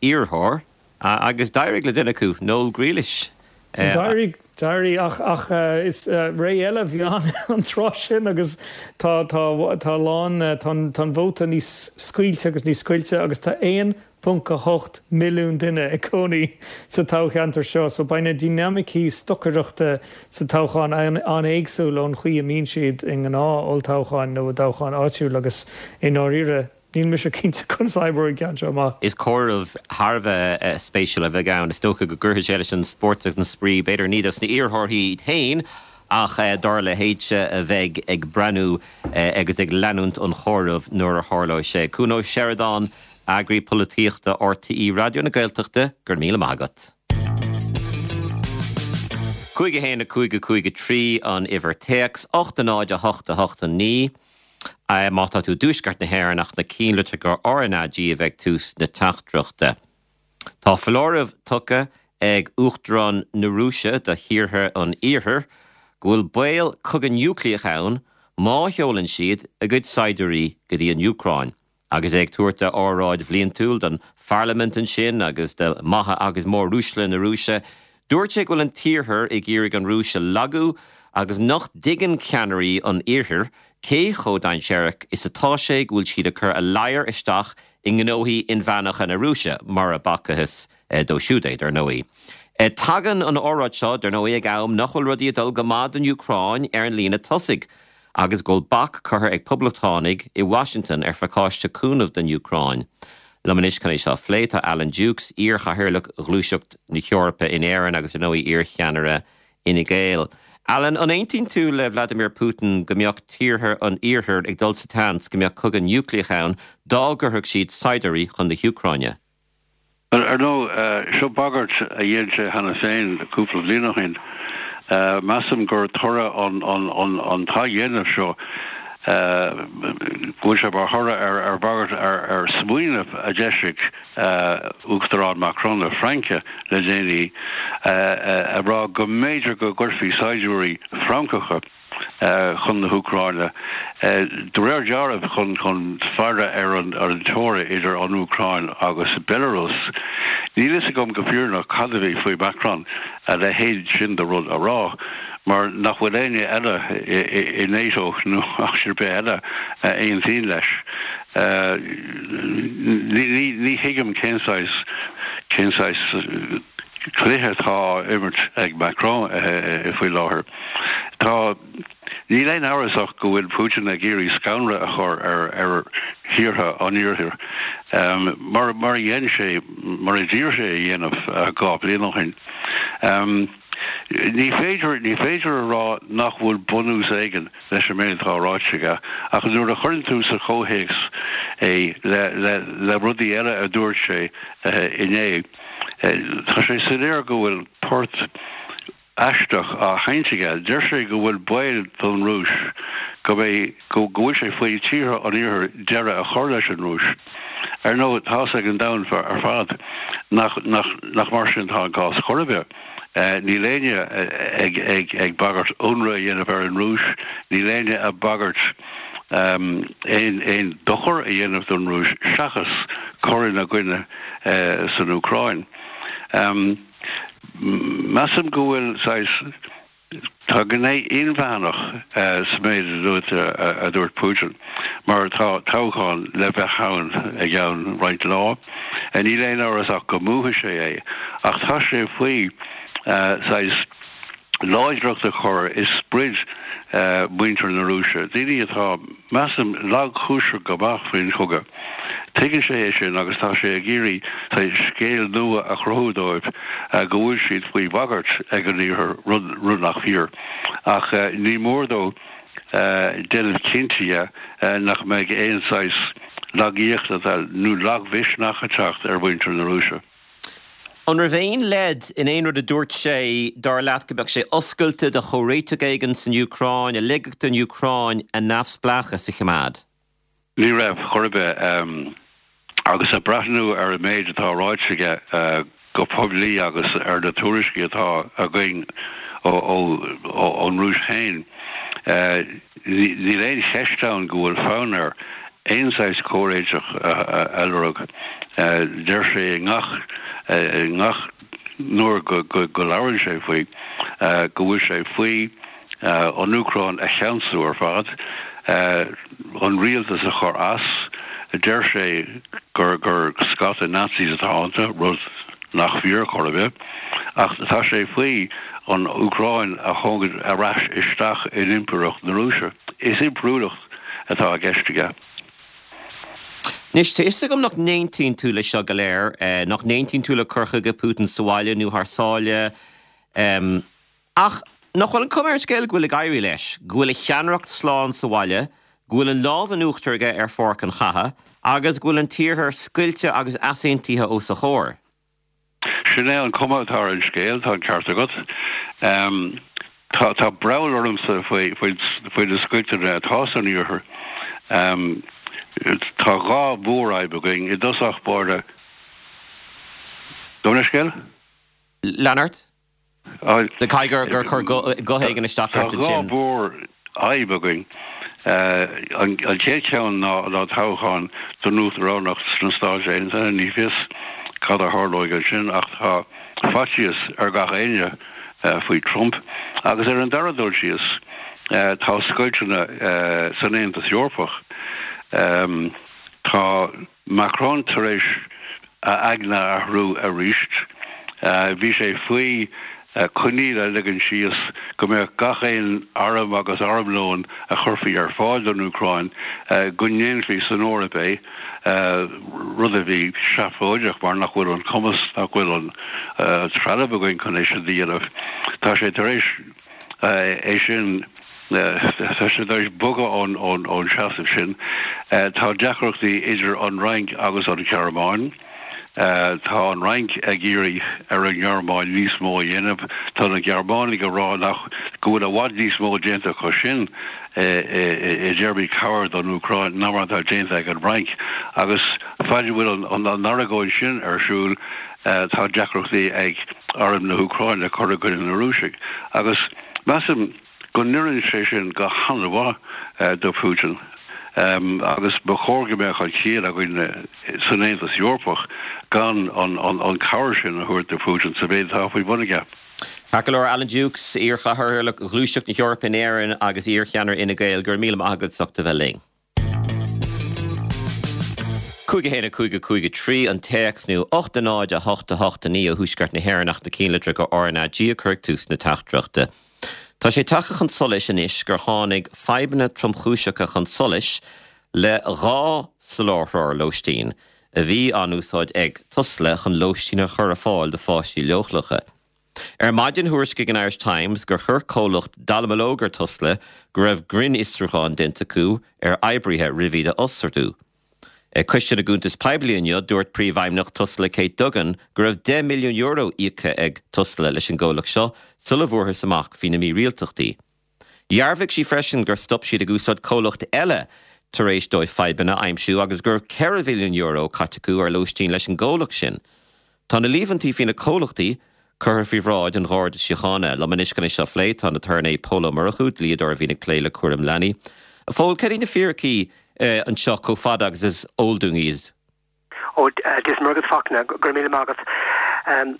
iarrthóir agus d'éirigh le duine acu, Noel Grealish. D'éirigh, d'éirigh ach, ach is ré eile a bhí ann an tráth sin agus tá, tá, tá a lán, tá an, tá an vóta níos scaoilte agus níos scoilte agus tá 1.8 milliún duine ag cónaí sa toghcheantar seo so beidh na dinimicí stocaireachta sa toghchán an-éagsúil ón chaoi a mbíonn siad i ngnáth-olltoghcháin nó i dtoghcháin áitiúil agus i ndáiríre Níl mise cinnte conas a oibreoidh an ceann seo amach. Is comhaireamh thar a bheith spéisiúil a bheidh ann. Is dócha go gcuirfidh sé leis an spórt agus an spraoi, b'fhéidir ní dos na iarrthóirí iad féin ach dár leithéidse a bheidh ag breathnú agus ag leanúint an chomhairimh nuair a tharlóidh sé. Cuan Ó Seireadáin, Eagraí Polaitíochta RTÉ Raidió na Gaeltachta, go raibh míle maith agat. 5 1 5 5 3 an uimhir téacs, 8 0 8 8 9. Má tá tú i dtuaisceart na hÉireann ach na cinnlitreacha RnaG a bheith ag tús na teachtaireachta. Tá foláireamh tugtha ag Uachtarán na Rúise do thíortha an Iarthair go bhfuil baol cogadh núicléach ann má sheolann siad a gcuid saighdiúirí go dtí an Úcráin. Agus é ag tabhairt a óráid bhliantúil don pharlaimint ansin agus do maithe agus móruaisle na Rúise, dúirt sé go bhfuil an tIarthar ag iarraidh an Rúis a lagú agus nach dtuigeann ceannairí an Iarthair cé chomh dainséarach is atá sé go bhfuil siad ag cur a ladhar isteach i ngnóthaí inmheánacha na Rúise, mura bhfacthas dó siúd é, dar ndóigh. Tagann an óráid seo, dar ndóigh, ag am nach bhfuil rudaí ag dul go maith don Úcráin ar an líne tosaigh. agus go bhfuil bac curtha ag Poblachtánaigh i Washington ar phacáiste cúnaimh don Úcráin. Liom anois chun é seo a phlé tá Alan Dukes, iar-chathaoirleach Ghluaiseacht na hEorpa in Éirinn agus ar ndóigh iar-cheannaire Fhine Gael. Alan, an aontaíonn tú le Vladimir Putin go mbeadh tíortha an Iarthair ag dul sa tseans go mbeadh cogadh núicléach ann dá gcuirfeadh siad saighdiúirí chun na hÚcráine? Ar ndóigh, seo bagairt a dhein sé cheana féin cúpla bliain ó shin. Measaim gur toradh an t-athdhéanamh seo, go bhfuil sé mar thoradh ar bhagairt, ar smaoineamh a d'eisigh Uachtarán Macron na Fraince le déanaí, ag rá go mb'fhéidir go gcuirfí saighdiúirí Francacha, chun na hÚcráine, de réir dealraimh chun chun faire ar an teora idir an Úcráin agus Belarus. Níl fhios agam go fírinneach cad a bhí faoi Macron a leithéid sin de rud a rá, mar nach bhfuil éinne eile i NATO nó áit ar bith eile a aontaíonn leis. Ní thuigim cén saghas cén saghas cluiche atá á imirt ag Macron faoi láthair. Tá, níl aon amhras ach go bhfuil Putin ag iarraidh scanradh a chur ar ar thíortha an Iarthair, mar mar a dhein sé, mar a d'iarr sé a dhéanamh 2 bliain ó shin. Ní féidir, ní féidir a rá nach bhfuil bunús éigin leis an méid atá ráite aige, ach nuair a chuireann tú sa chomhthéacs é le le le rudaí eile a dúirt sé inné, tá sé soiléir go bhfuil port aisteach á sheinnt aige. Deir sé go bhfuil baol don Rúis go mbeidh, go bhfuil sé faoi tíortha an Iarthair deireadh a chur leis an Rúis. Ar ndóigh, tá's ag an domhan ar fad nach, nach, nach mar sin atá an cás chor ar bith. Níl éinne ag, ag, ag bagairt ionradh a dhéanamh ar an Rúis, níl éinne ag bagairt aon, aon dochar a dhéanamh don Rúis seachas cur ina gcoinne san Úcráin. Measaim go bhfuil saghas, tá gné inmheánach sa méid a dúirt Putin, mar tá toghchán le bheith ann i gceann roinnt lá. Níl aon amhras ach go mbuafaidh sé é, ach tá sé faoi saghas láidreacht a chur i sprid mhuintir na Rúise, daoine atá, measaim, lagchúiseach go maith faoin chogadh. Tuigeann sé é sin agus tá sé ag iarraidh saghas scéal nua a chruthú dóibh go bhfuil siad faoi bhagairt ag an Iarthar, rud nach fíor. Ach ní mór dó déanamh cinnte dhe nach mbeidh aon saghas lagaíochta nó lagmhisneach ag teacht ar mhuintir na Rúise. An raibh aon leid in aon rud a dúirt sé, dar leat, go mbeadh sé oscailte do chomhréiteach éigin san Úcráin, a ligfeadh don Úcráin a neamhspleáchas a choimeád? Ní raibh, chor ar bith. Agus ag breathnú ar an méid atá ráite aige go poiblí agus ar na tuairiscí atá againn ón Rúis féin, níl aon cheist ann go bhfuil fonn air. aon saghas comhréiteach a lorg. Deir sé i ngach i ngach nuair go go labhrann sé faoi go bhfuil sé faoi an Úcráin a cheansú ar fad, an rialtas a chur as. Deir sé gur gur scata Nazis atá iontu, rud nach fíor chor ar bith, ach tá sé faoi an Úcráin a thógaint ar ais isteach in Impireacht na Rúise. Is impiriúlacht atá i gceist aige. Anois, tá fhios agam nach n-aontaíonn tú leis seo go léir, nach n-aontaíonn tú le cur chuige Putin sa bhaile nó thar sáile, ach nach bhfuil an chuma ar an scéal go bhfuil ag éirí leis, go bhfuil a cheannaireacht slán sa bhaile, go bhfuil an lámh in uachtar aige ar pháirc an chatha, agus go bhfuil an tIarthar scoilte agus easaontaithe os a chomhair? Sin é an cuma atá ar an scéal, tá an ceart agat. Tá breall ormsa faoi faoi na scoilteanna atá san Iarthar. Tá dhá mhórfhadhb againn i dtosach báire. Gabh mo leithscéal? Lean ort. Caithfidh gur chuir guth éigin isteach ort ansin. Tá dhá mhórfhadhb againn. An chéad cheann ná toghchán don uachtaránacht sna Stáit Aontaithe. Ní fios cad a tharlóidh ansin ach tá faitíos ar gach éinne faoi Trump. Agus ar an dara dul síos, tá scoilteanna san Aontas Eorpach. Tá. Macron tar éis a aigne a athrú arís. Bhí sé faoi choinníoll a ligean síos go mbeadh gach aon arm agus armlón a chuirfí ar fáil don Úcráin, go ndéanfaí san Eoraip é, rud a bhí seafóideach mar nach bhfuil an cumas, nach bhfuil an trealamh againn chun é sin a dhéanamh. Tá sé tar éis. é sin, tá sé tar éis bogadh ón seasamh sin. Tá deacrachtaí idir an Fhrainc agus an Ghearmáin. Tá an Fhrainc ag iarraidh ar an nGearmáin níos mó a dhéanamh. Tá na Gearmánaigh ag rá nach go bhfuil i bhfad níos mó déanta acu sin i dtéarmaí cabhair don Úcráin ná mar atá déanta ag an bhFrainc. Agus faid a bhfuil an argóint sin ar siúl, tá deacrachtaí ag arm na hÚcráine cur i gcoinne na Rúisigh agus measaim go n-oireann sé sin go han-mhaith do Putin agus ba chóir go mbeadh an chiall againn san Aontas Eorpach gan an cabhair sin a thabhairt do Putin sa mhéid atá faoi bhun aige. Ceart go leor, Alan Dukes, iar-chathaoirleach Ghluaiseacht na hEorpa in Éirinn agus iar-cheannaire Fhine Gael, go raibh míle maith agat as ucht a bheith linn. 5 1 5 5 3 an téacs nó 8 0 8 8 9 ó Thuaisceart na hÉireann ach na cinnlitreacha RnaG a chur ag tús na teachtaireachta. Tá sé tagtha chun solais anois gur tháinig fadhbanna tromchúiseacha chun solais le dhá soláthróir lóistín a bhí á n-úsáid ag Tusla chun lóistín a chur ar fáil do pháistí leochaileacha. Ar maidin thuairiscigh an Irish Times gur chuir comhlacht dallamullóg ar Tusla go raibh grinnfhiosrúchán déanta acu ar oibrithe roimh iad a fhostú. Ag Coiste na gCuntas Poiblí inniu, dúirt Príomhfheidhmeannach Tusla Kate Duggan go raibh €10 milliún íoctha ag Tusla leis an gcomhlacht seo sula bhfuarthas amach faoi na mírialtachtaí. Dhearbhaigh sí freisin gur stop siad ag úsáid comhlacht eile tar éis dóibh fadhbanna a aimsiú agus go raibh €4 mhilliún caite acu ar lóistín leis an gcomhlacht sin. Tá na líomhaintí faoi na comhlachtaí curtha faoi bhráid an Gharda Síochána. Liom anois chun é seo a phlé tá an t-aturnae Pól Ó Murchú, dlíodóir a bhíonn ag plé le cúram leanaí. A Phóil, cad iad na fíricí anseo chomh fada agus is eol dúinn iad? Ó, Dia is Muire agat, Fachtna, go raibh míle maith agat.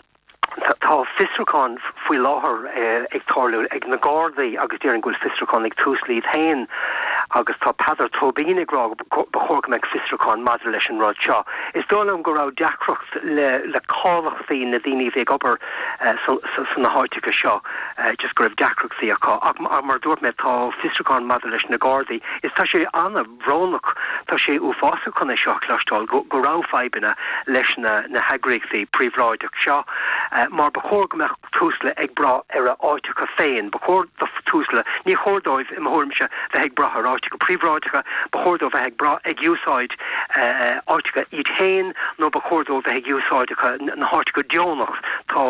Tá fiosrúchán faoi láthair ag tarlú ag na Gardaí agus déarfainn go bhfuil fiosrúchán ag Tusla iad féin agus tá Peadar Tóibín ag rá go ba chóir go mbeadh fiosrúchán maidir leis an rud seo. Is dóigh liom go raibh deacracht le le cáilíochtaí na daoine a bhí ag obair sna háiteacha seo, just go raibh deacrachtaí acu. Ach mar a dúirt mé, tá fiosrúchán maidir leis na Gardaí. Is tá sé ana. bhrónach. Tá sé uafásach chun é seo a chloisteáil, go raibh fadhbanna leis na heagraíochtaí príobháideach seo, mar ba chóir go mbeadh Tusla ag brath ar a áiteacha féin. Ba chóir do Tusla, ní chóir dóibh, i mo thuairimse, bheith ag brath ar áiteacha príobháideacha, ba chóir dóibh bheith ag brath, ag úsáid áiteacha iad féin nó ba chóir dóibh bheith ag úsáideacha na háiteacha deonach. Tá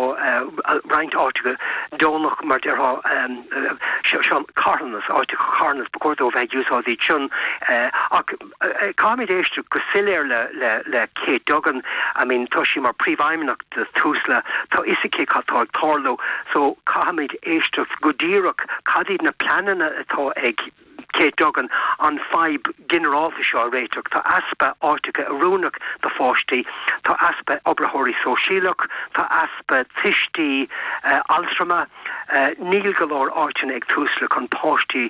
roinnt áiteacha deonach, mar déarfá, seo carthanas, áiteacha carthanas, ba chóir dóibh bheith ag úsáid iad sin. Ach caithfimid éisteacht go soiléir le Kate Duggan, I mean tá sí mar príomhfheidhmeannach de Tusla, tá fhios aici cad tá ag tarlú, so caithfimid éisteacht go díreach cad iad na pleananna atá ag. Kate Duggan an fadhb ginearálta seo a réiteach. Tá easpa áiteacha oiriúnach do pháistí, tá easpa oibritheoirí sóisialach, tá easpa tuistí altrama. Níl go leor áiteanna ag Tusla chun páistí,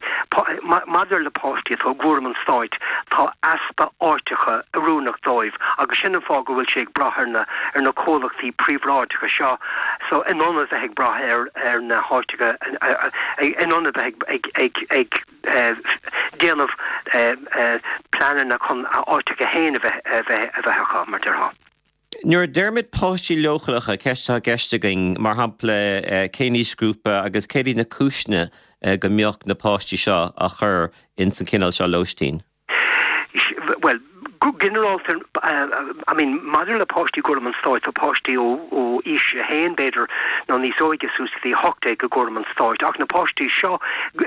maidir le páistí atá i gcúram an stáit, tá easpa áiteacha oiriúnach dóibh agus sin an fáth go bhfuil sé ag brath ar na ar na comhlachtaí príobháideacha seo so in ionad bheith ag brath ar ar na háiteacha in ionad bheith ag ag ag ag déanamh pleananna chun a áiteacha féin a bheith a bheith a bheith acu mar déarfá. Nuair a deirimid páistí leochaileacha, ceist atá i gceist againn, mar shampla, cén aoisghrúpa agus céard iad na cúiseanna go mbeadh na páistí seo á chur ins an chineál seo lóistín? Bhuel, go ginearálta, I mean, maidir le páistí i gcúram an stáit, tá páistí ó aois a haon, b'fhéidir, nó níos óige suas go dtí 18 i gcúram an stáit, ach na páistí seo,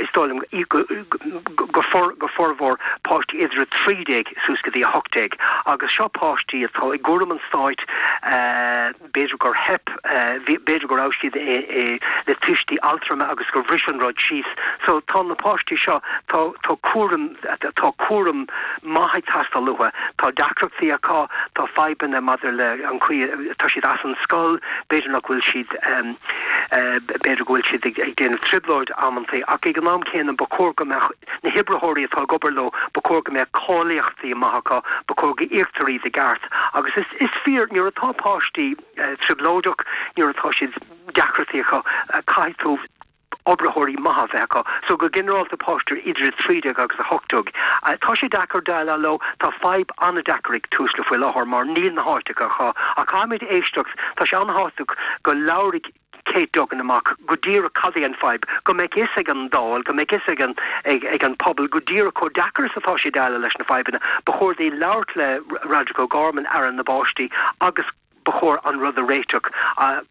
is dóigh liom, go formhór páistí idir 13 suas go dtí 18 agus seo páistí atá i gcúram an stáit, b'fhéidir gur theip, b'fhéidir go raibh siad le tuistí altrama agus gur bhris an rud síos. So tá na páistí seo, tá tá cúram, tá cúram maith ag teastáil uathu, tá deacrachtaí acu, tá fadhbanna maidir le an chaoi, tá siad as an scoil, b'fhéidir nach bhfuil siad, b'fhéidir go bhfuil siad ag déanamh trioblóid amantaí ach ag an am céanna ba chóir go mbeadh Na hoibritheoirí atá ag obair leo, ba chóir go mbeadh cáilíochtaí maith acu, ba chóir go íoctar iad i gceart. Agus is, is fíor, nuair atá páistí trioblóideach, nuair atá siad, deacrachtaí acu, caithfidh tú oibritheoirí maithe a bheith acu. So go ginearálta páistí idir 13 agus 18. Tá sé deacair déileáil leo, tá fadhb an-deacair ag Tusla faoi láthair mar níl na háiteacha acu. Ach caithfimid éisteacht, tá sé an-thábhachtach go labhraigh Kate Duggan amach go díreach cad é an fadhb, go mbeadh fhios ag an Dáil, go mbeadh fhios ag an ag an pobal go díreach chomh deacair is atá sé déileáil leis na fadhbanna. Ba chóir di labhairt le Roderic O'Gorman, Aire na bPáistí, agus ba chóir an rud a réiteach.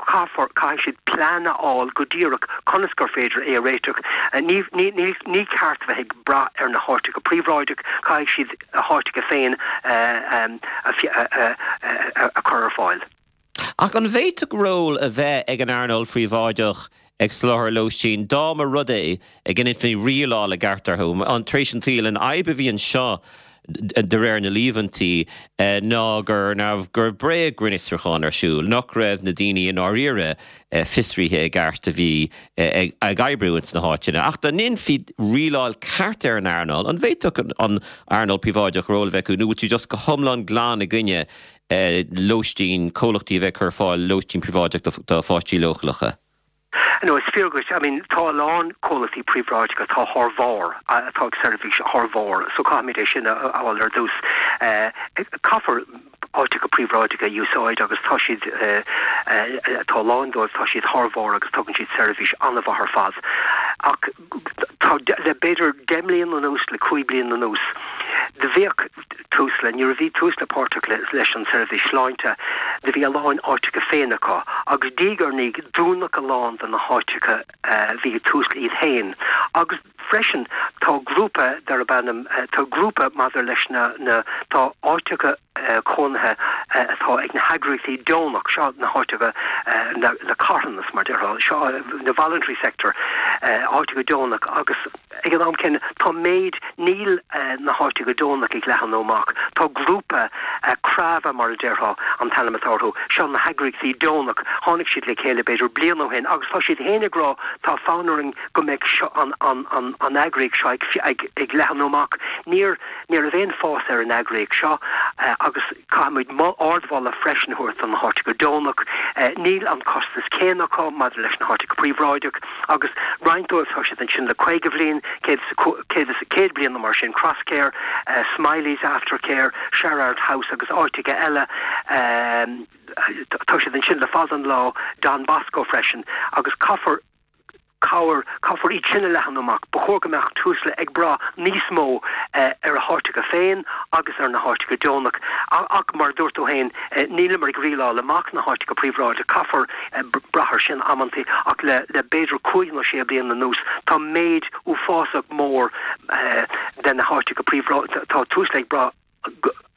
Caithfear, caithfidh siad plean a fháil go díreach conas gur féidir é a réiteach. Ní, ní, ní, ní ceart bheith ag brath ar na háiteacha príobháideach, caithfidh siad a háiteacha féin a, a, a, a, a chur ar fáil. Ach an bhféadfadh ról a bheith ag an earnáil phríobháideach ag soláthar lóistín dá mba rud é go ndéanfaí rialáil i gceart orthu? Tar éis an tsaoil, an fhadhb a bhí anseo, de réir na líomhaintí, ná go raibh go raibh bréag-ghrinnfhiosrúchán ar siúl, nach raibh na daoine i ndáiríre fiosraithe i gceart a bhí ag oibriú ins na háiteanna. Ach dá ndéanfaí rialáil ceart ar an earnáil, an bhféadfadh an earnáil phríobháideach ról a bheith acu nó bhfuil tú just go hiomlán glan i gcoinne lóistín, comhlachtaí a bheith ag cur ar fáil lóistín príobháideach do pháistí leochaileacha. No, is fíor dhuit. I mean, tá a lán comhlachtaí príobháideacha atá thar bharr, atá ag seirbhís thar bharr, so caithfimid é sin a fháil ar dtús. Caithfear áiteacha príobháideacha a úsáid agus tá siad, tá a lán dóibh, tá siad thar bharr agus tugann siad seirbhís an-mhaith ar fad. Ach tá, le b'fhéidir 10 mbliana anuas, le 5 bliana anuas, do bhíodh Tusla, nuair a bhí Tusla páirteach leis an tseirbhís sláinte, do bhí a lán áiteacha féin acu agus diaidh ar ndiaidh dúnadh a lán de na háiteacha a bhí ag Tusla iad féin agus freisin tá grúpa darb ainm, tá grúpa maidir leis na, na, tá áiteacha cónaithe atá ag na heagraíochtaí deonach, seo na háiteacha na carthanas mar déarfá, seo na voluntary sector, áiteacha deonach agus. Ag an am céanna, tá méid, níl na háiteacha deonach ag leathnú amach. Tá grúpa, Crava mar a déarfá an t-ainm atá orthu, seo na heagraíochtaí deonach, tháinig siad le chéile b'fhéidir bliain ó shin agus tá siad féin ag rá tá fonn orainn go mbeidh seo, an, an, an, an eagraíocht seo ag, ag, ag leathnú amach. Níor, ní raibh aon fás ar an eagraíocht seo agus caithfimid ardmholadh freisin a thabhairt do na háiteacha deonach. Níl an costas céanna acu maidir leis na háiteacha príobháideach. Agus roinnt dóibh tá siad ansin le 50 bhliain, 100 bliain nó mar sin, Crosscare, Smiley's Aftercare, Sherrard House agus áiteacha eile, tá siad ansin le fada an lá, Don Bosco freisin, agus caithfear cabhair, caithfear iad sin a leathnú amach. Ba chóir go mbeadh Tusla ag brath níos mó ar a háiteacha féin agus ar na háiteacha deonach. Ach mar a dúirt tú féin, níleamar ag rialáil amach na háiteacha príobháideacha, caithfear brath air sin amantaí ach le le b'fhéidir cúig nó sé bliana anuas tá méid uafásach mór de na háiteacha príobháideacha, tá Tusla ag brath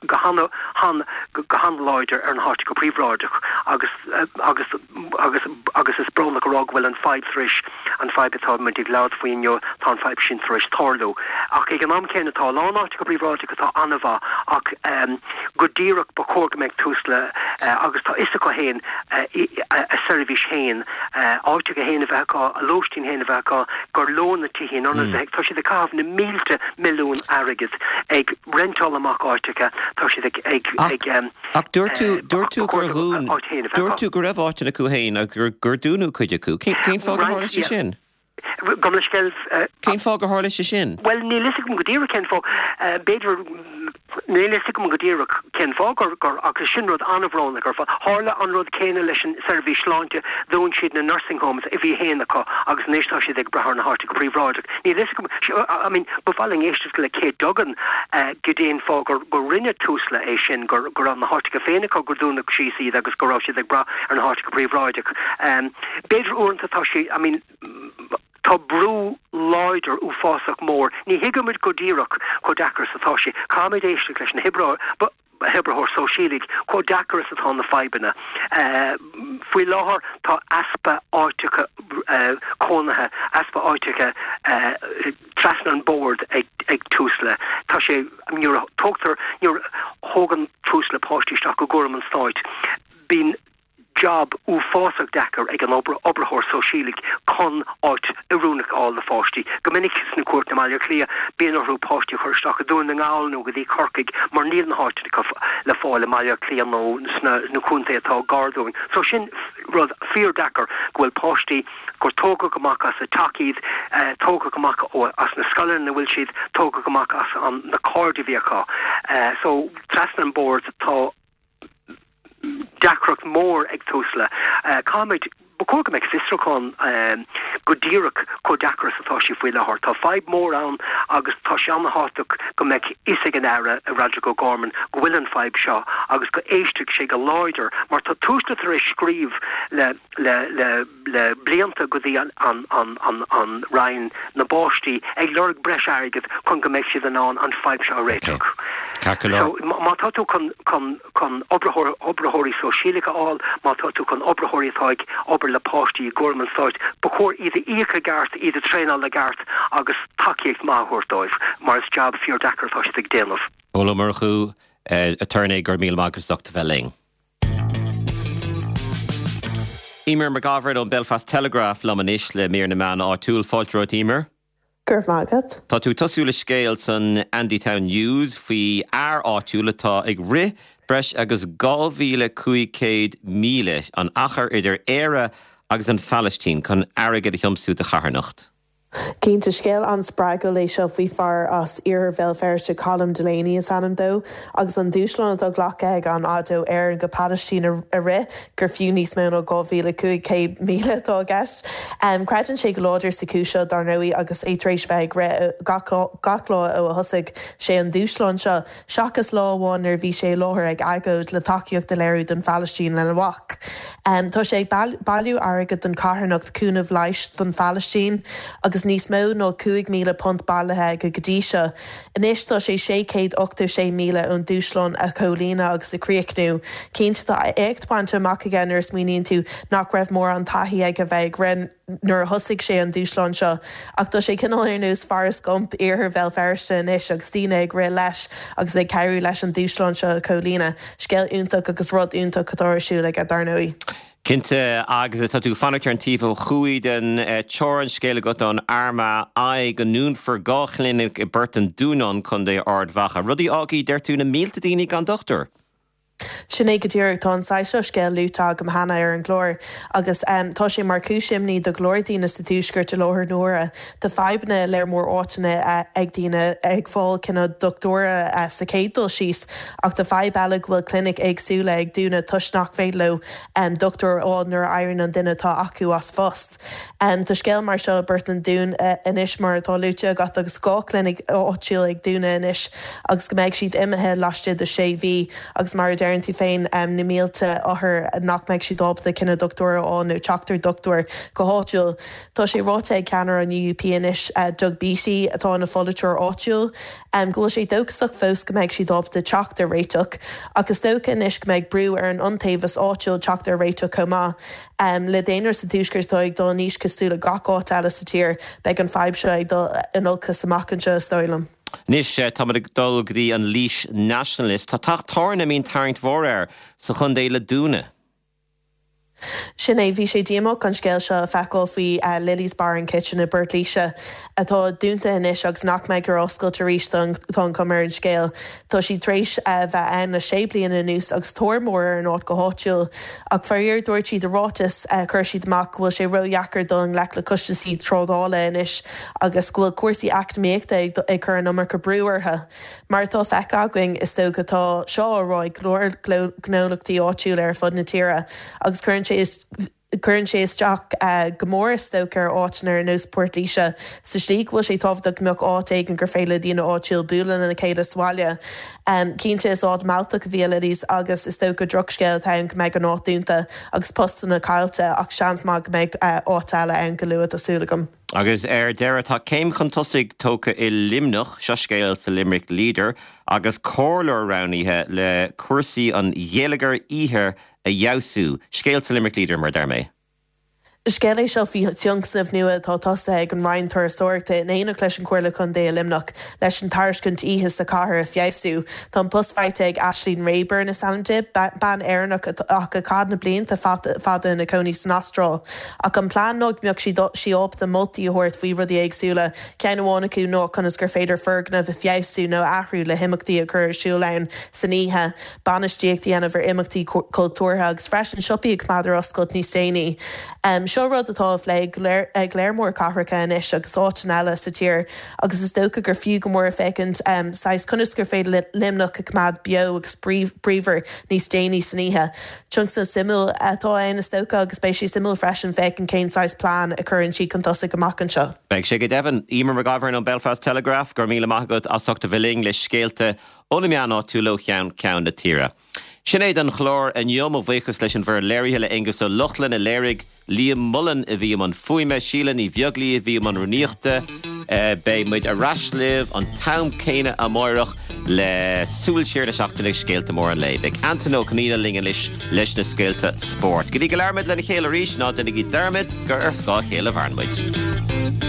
go han han go han-láidir ar na háiteacha príobháideach agus agus agus agus is brónach a rá. rá go bhfuil an fadhb tar éis, an fadhb atá muid ag labhairt faoi inniu, tá an fadhb sin tar éis tarlú. Ach ag an am céanna tá a lán áiteacha príobháideacha atá an-mhaith ach go díreach ba chóir go mbeadh Tusla agus tá fhios acu féin a seirbhís féin, áiteacha féin a bheith acu, a lóistín féin a bheith acu, gur leo na tithe in ionad bheith, tá siad ag caitheamh na mílte milliún airgid ag reinteáil amach áiteacha, tá siad ag, ag, ag. Ach dúirt tú, dúirt tú gur dhún, dúirt tú go raibh áiteanna acu féin agus gur, gur dúnadh cuid acu. Cén, cén fáth gur tharla sé sin? Gabh mo leithscéal. Cén fáth gur tharla sé sin? Bhuel, níl fhios agam go díreach cén fáth. B'fhéidir, níl fhios agam go díreach cén fáth gur, gur, agus sin rud an-bhrónach ar fad. Tharla an rud céanna leis an seirbhís sláinte, dhún siad na nursing homes a bhí féin acu agus anois tá siad ag brath ar na háiteacha príobháideach. Níl fhios agam, I mean, ba mhaith linn éisteacht le Kate Duggan goidé an fáth gur gur rinne Tusla é sin, gur go raibh na háiteacha féin acu gur dúnadh síos iad agus go raibh siad ag brath ar na háiteacha príobháideach. B'fhéidir uaireanta tá sé, I mean, tá brú láidir uafásach mór, ní thuigimid go díreach chomh deacair is atá sé. Caithfimid éisteacht leis na hoibreoirí, hoibritheoir sóisialaigh, chomh deacair is atá na fadhbanna. Faoi láthair tá easpa áiteacha cónaithe, easpa áiteacha trasna an bord ag Tusla. Tá sé, nuair a tógtar, nuair a thógann Tusla páistí isteach i gcúram an stáit, bíonn jab uafásach deacair ag an oibritheoir sóisialaigh chun áit oiriúnach a fháil do pháistí. Go minic sna cúirteanna i mBaile Átha Cliath, bíonn orthu páistí a chur isteach i Dún na nGall nó go dtí Corcaigh mar níl na háiteanna le fáil i mBaile Átha Cliath nó sna na contaetha atá gar dúinn. So sin rud fíor-deacair go bhfuil páistí gur tógadh amach as a dteach iad, tógadh amach as na scoileanna ina bhfuil siad, tógadh amach as na cairde a bhí acu. So trasna an bord tá. deacracht mór ag Tusla. Caithfimid, ba chóir go mbeadh fiosrúchán go díreach chomh deacair is atá sé faoi láthair. Tá fadhb mór ann agus tá sé an-thábhachtach go mbeadh fhios ag an Aire, Roderic O'Gorman, go bhfuil an fadhb seo agus go éistfeadh sé go láidir mar tá Tusla tar éis scríobh le le le le blianta go dtí an an an an an Roinn na bPáistí ag lorg breis airgid chun go mbeidh siad in ann an fadhb seo a réiteach. So má tá tú chun chun chun oibritheoir oibritheoirí sóisialacha a fháil, má tá tú chun oibritheoirí atá ag obair le páistí i gcúram an stáit, ba chóir iad a íoc i gceart, iad a traenáil i gceart agus tacaíocht maith a thabhairt dóibh mar is jab fíor deacair atá siad ag déanamh. Pól Ó Murchú, aturnae, go raibh míle maith agat as ucht a bheith linn. Eimear McGovern ón Belfast Telegraph liom anois le mír na meán áitiúil. Fáilte romhat Eimear. Go raibh maith agat. Tá tú ag tosú le scéal san Andytown News faoi fhear áitiúil atá ag rith breis agus 2,500 míle, an achar idir Éire agus an Phalaistín, chun airgead a thiomsú do charthanacht. Cinnte, scéal an-spreagúil é seo faoi fear as iarthar Bhéal Feirste, Colm Delaney is ainm dó, agus an dúshlán atá glactha aige an fhad ó Éirinn go Palaistín a rith, gur fiú níos mó ná 2,500 míle atá i gceist. Creideann sé go láidir sa chúis seo, dar ndóigh, agus é tar éis bheith ag rith gach lá ó a thosaigh sé an dúshlán seo. seachas lá amháin nuair a bhí sé i láthair ag agóid le tacaíocht a léiriú don Phalaistín lena mhac. Tá sé ag bailiú airgid don charthanacht Cúnamh Leighis don Phalaistín agus níos mó ná £5,000 bailithe aige go dtí seo. Anois tá sé 686 míle ón dúshlán a chomhlíonadh agus a chríochnú. Cinnte tá éacht bainte amach aige nuair a smaoiníonn tú nach raibh mórán taithí aige bheith ag rith. nuair a thosaigh sé an dúshlán seo. Ach tá sé cineál ar nós Forrest Gump iarthar Bhéal Feirste anois agus daoine ag rith leis agus ag cabhrú leis an dúshlán seo a chomhlíonadh. Scéal iontach agus rud iontach atá ar siúl aige, dar ndóigh. Cinnte, agus tá tú ag fanacht ar an taobh ó thuaidh den teorainn, scéal agat ón Armagh Eye go ndúnfar 2 chlinic i bPort an Dúnáin, Contae Ard Mhacha. Rud a fhágfaidh, deir tú, na mílte daoine gan dochtúir. Sin é go díreach. Tá an saghas seo scéil luaite agam cheana ar an gclár agus tá sé mar chúis imní do go leor daoine sa Tuaisceart i láthair na huaire. Tá fadhbanna i lear mór áiteanna ag daoine ag fáil cineál dochtúra sa chéad dul síos ach tá fadhb eile go bhfuil clinic éagsúla ag dúnadh toisc nach féidir leo dochtúir a fháil nuair a éiríonn an duine atá acu as phost. Tá scéal mar seo i bPort an Dúin anois mar atá luaite agat agus 2 chlinic áitiúil ag dúnadh anois agus go mbeidh siad imithe laistigh de 6 mhí agus mar a deireann. deireann tú féin, na mílte othar nach mbeidh siad ábalta cinneadh dochtúra a fháil nó teacht ar dhochtúir go háitiúil. Tá sé ráite ag ceannaire an UUP anois, Doug Beattie, atá ina pholaiteoir áitiúil, go bhfuil sé dóchasach fós go mbeidh siad ábalta teacht ar réiteach. Ach is dócha anois go mbeidh brú ar an iontaobhas áitiúil teacht ar réiteach chomh maith. Le daonra sa Tuaisceart atá ag dul in aois cosúil le gach áit eile sa tír, beidh an fadhb seo ag dul in olcas amach anseo, is dóigh liom. Anois, táimid ag dul go dtí an Laois Nationalist. Tá teach tábhairne a mbíonn tarraingt mhór air sa chontae le dúnadh. Sin é, bhí sé díomách an scéal seo a feiceáil faoi Lily's Bar and Kitchen i bPort Laoise, atá dúnta anois agus nach mbeidh ar oscailt arís, tá an chuma ar an scéal. Tá siad tar éis bheith ann le sé bliana anuas agus tóir mhór ar an áit go háitiúil. Ach faraor, dúirt siad i ráiteas a chuir siad amach go bhfuil sé ródheacair dul i ngleic le costaisí trádála anois agus go bhfuil cúrsaí eacnamaíochta ag cur an iomarca brú orthu. Mar atá feicthe againn, is dócha, tá seo á rá ag go leor gnólachtaí áitiúla ar fud na tíre agus cuireann sé cuireann sé isteach go mór, is dócha, ar áiteanna ar nós Port Laoise sa slí go bhfuil sé tábhachtach go mbeadh áit éigin gur féidir le daoine áitiúil bualadh lena chéile sa bhaile. Cinnte, is áit mealltach a bhí i Lily's agus is dócha drochscéal atá ann go mbeidh an áit dúnta agus postanna caillte ach seans maith go mbeidh áit eile ann go luath, tá súil agam. Agus ar deireadh, tá céim chun tosaigh tógtha i Luimneach, seo scéal sa Limerick Leader, agus comhairleoir roghnaithe le cúrsaí an gheilleagair oíche a fheabhsú. Scéal sa Limerick Leader, mar a deir mé. Scéal é seo faoi thionscnamh nua atá tosaithe ag an Roinn Turasóireachta in éineacht leis an Chomhairle Contae i Luimneach leis an tairiscint oíche sa chathair a feabhsú. Tá an post faighte ag Aisling Rayburn is ainm di, bean Éireannach ach a chaith na blianta fada ina cónaí san Astráil. Ach an plean ná go mbeadh sí ábalta moltaí a thabhairt faoi rudaí éagsúla, ceann amháin acu ná conas gur féidir foirgnimh a feabhsú nó a athrú le himeachtaí a chur ar siúl ann san oíche, bainistíocht a dhéanamh ar imeachtaí cultúrtha agus freisin siopaí a choimeád ar oscailt níos déanaí. Seo rud atá á phlé ag léar mór cathracha anois agus áiteanna eile sa tír agus is dócha gur fiú go mór féachaint saghas conas gur féidir Luimneach a choimeád beo agus bríomhar níos déanaí san oíche. Tionscnamh suimiúil atá ann is dócha agus beidh sé suimiúil freisin féachaint cén saghas plean a chuireann siad chun tosaigh amach anseo. Beidh sé go deimhin. Eimear Mac Gabhann ón Belfast Telegraph, go raibh míle maith agat as ucht a bheith linn le scéalta ó na meáin áitiúla ó cheann ceann na tíre. Sin é don chlár inniu. Mo bhuíochas leis an bhfoireann léirithe, le Aonghus Ó Lochlainn a léirigh, Liam Mullen a bhí i mbun fuaime, Síle Ní Bheaglaoí a bhí i mbun rúnaíochta. Beidh muid ar ais libh an t-am céanna amáireach le súil siar na seachtaine agus scéalta móra an lae. Beidh Antain Ó Conghaile linn anois leis na scéalta spóirt. Go dtí go labhraímid lena chéile arís, ná déanaigí dearmad gur ar scáth a chéile a mhaireann muid.